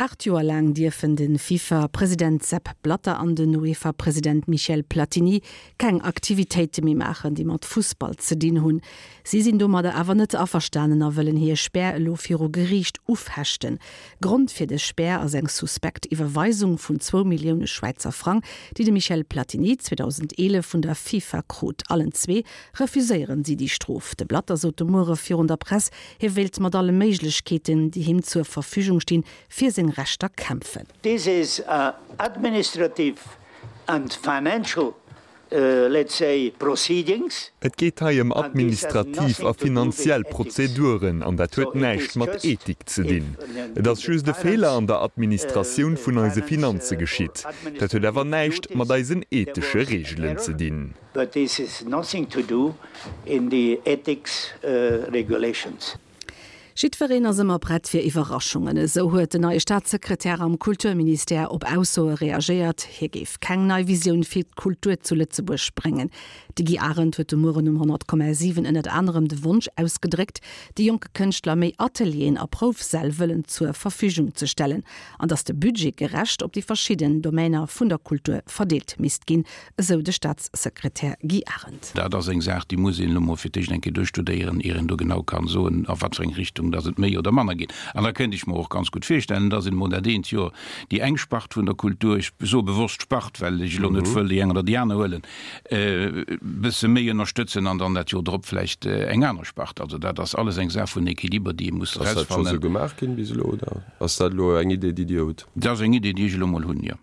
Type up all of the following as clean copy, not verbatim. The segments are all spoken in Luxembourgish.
8 Joer laang dierfen de FIFA-President Sepp Blatter an den UEFA-President Michel Platini keng Aktivitéite méi maachen, déi mat Fussball ze dinn hunn. Si sinn domadder awer net averstanen a wëllen hir Spär elo viru Geriicht ufechten. Grond fir dës Spär ass eng suspekt Iwwerweisung vun zwou Millioune Schwäizer Frang, déi de Michel Platini 2011 vun der FIFA krut. Allen zwee refuséieren si déi Strof. De Blatter sot de Muere virun der Press, Hie wéilt mat alle Méiglechkeeten, déi him zur Verfügung stinn, fir seng Rechter kämpfen. This is a administrative and financial, let's say, proceedings. Et geet hei ëm administrativ a finanziell Prozeduren an dat huet näischt mat Ethik ze dinn. Et ass just e Feeler an der Administratioun vun eise Finanze geschitt. Dat huet awer näischt mat eisen ethesche Reegelen ze dinn. But this is nothing to do in the ethics regulations. Jiddwereen ass ëmmer prett fir Iwwerraschungen. Esou huet den neie Staatssekretär am Kulturministère op Aussoe reagéiert, hie géif keng nei Visioun fir d'Kultur zu Lëtzebuerg bréngen. De Guy Arendt huet de Mueren um 100,7 ënnert anerem de Wonsch ausgedréckt, de jonke Kënschtler méi Atelieren a Proufsäll wëllen zur Verfügung ze stellen an datt de Budget gerecht op déi verschidden Domainer vun der Kultur verdeelt misst ginn, esou de Staatssekretär Guy Arendt. Dat ass eng Saach, déi muss een elo mol fir d'éischt eng Kéier duerchstudéieren, ier een do genau kann soen, a wat fir eng Richtung dass et méi oder manner geet. An da kéint ech mer och ganz gutt virstellen, dass een emol dat eent Joer déi eng Spart vun der Kultur, ech soe bewosst Spart, well ech elo net wëll déi eng oder déi aner huelen, e bësse méi ënnerstëtzen an dann dat Joer drop vläicht eng aner Spart. Also dat ass alles eng Saach vun Équiliber, déi ee muss Ass dat scho erausfannen. sou gemaach ginn bis elo oder ass dat elo eng Idee, déi Dir hutt? Dat ass eng Idee, déi ech elo mol hunn, jo.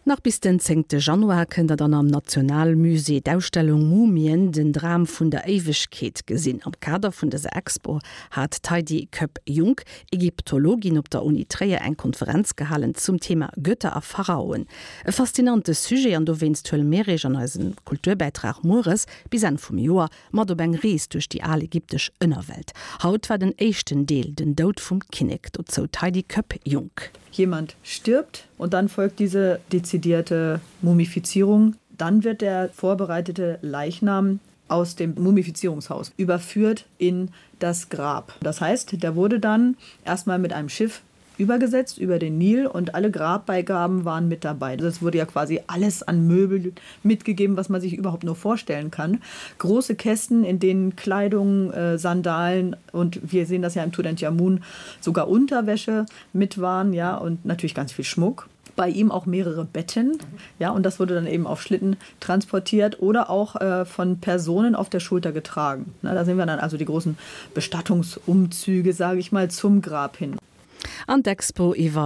Nach bis den zéngte Januar kënnt der dann am Nationalmusée d'Ausstellung Mumien, den Dram vun der Éiwegkeet gesinn. Am Kader vun dëser Expo hat d'Heidi Koepp-Junk, Ägyptologin op der Uni Tréier, eng Konferenz gehalen zum Thema Götter a Pharaoen. E faszinante Sujet an dowéinst huele mir iech an eisem Kulturbäitrag mueres bis Enn vum Joer mat op eng Rees duerch déi al ägyptesch Ënnerwelt. Haut war den éischten Deel, den Doud vum Kinnek. Dozou d'Heidi Koepp-Junk. Jemand stirbt und dann folgt diese dezidierte Mumifizierung. Dann wird der vorbereitete Leichnam aus dem Mumifizierungshaus überführt in das Grab. Das heißt, der wurde dann erstmal mit einem Schiff übergesetzt über den Nil und alle Grabbeigaben waren mit dabei. Es wurde ja quasi alles an Möbel mitgegeben, was man sich überhaupt nur vorstellen kann. Große Kästen, in denen Kleidung, äh, Sandalen und wir sehen das ja im Tutanchamun sogar Unterwäsche mit waren ja und natürlich ganz viel Schmuck. Bei ihm auch mehrere Betten ja und das wurde dann eben auf Schlitten transportiert oder auch äh, von Personen auf der Schulter getragen. Na, da sehen wir dann also die großen Bestattungsumzüge, sage ich mal, zum Grab hin. An d'Expo iwwer.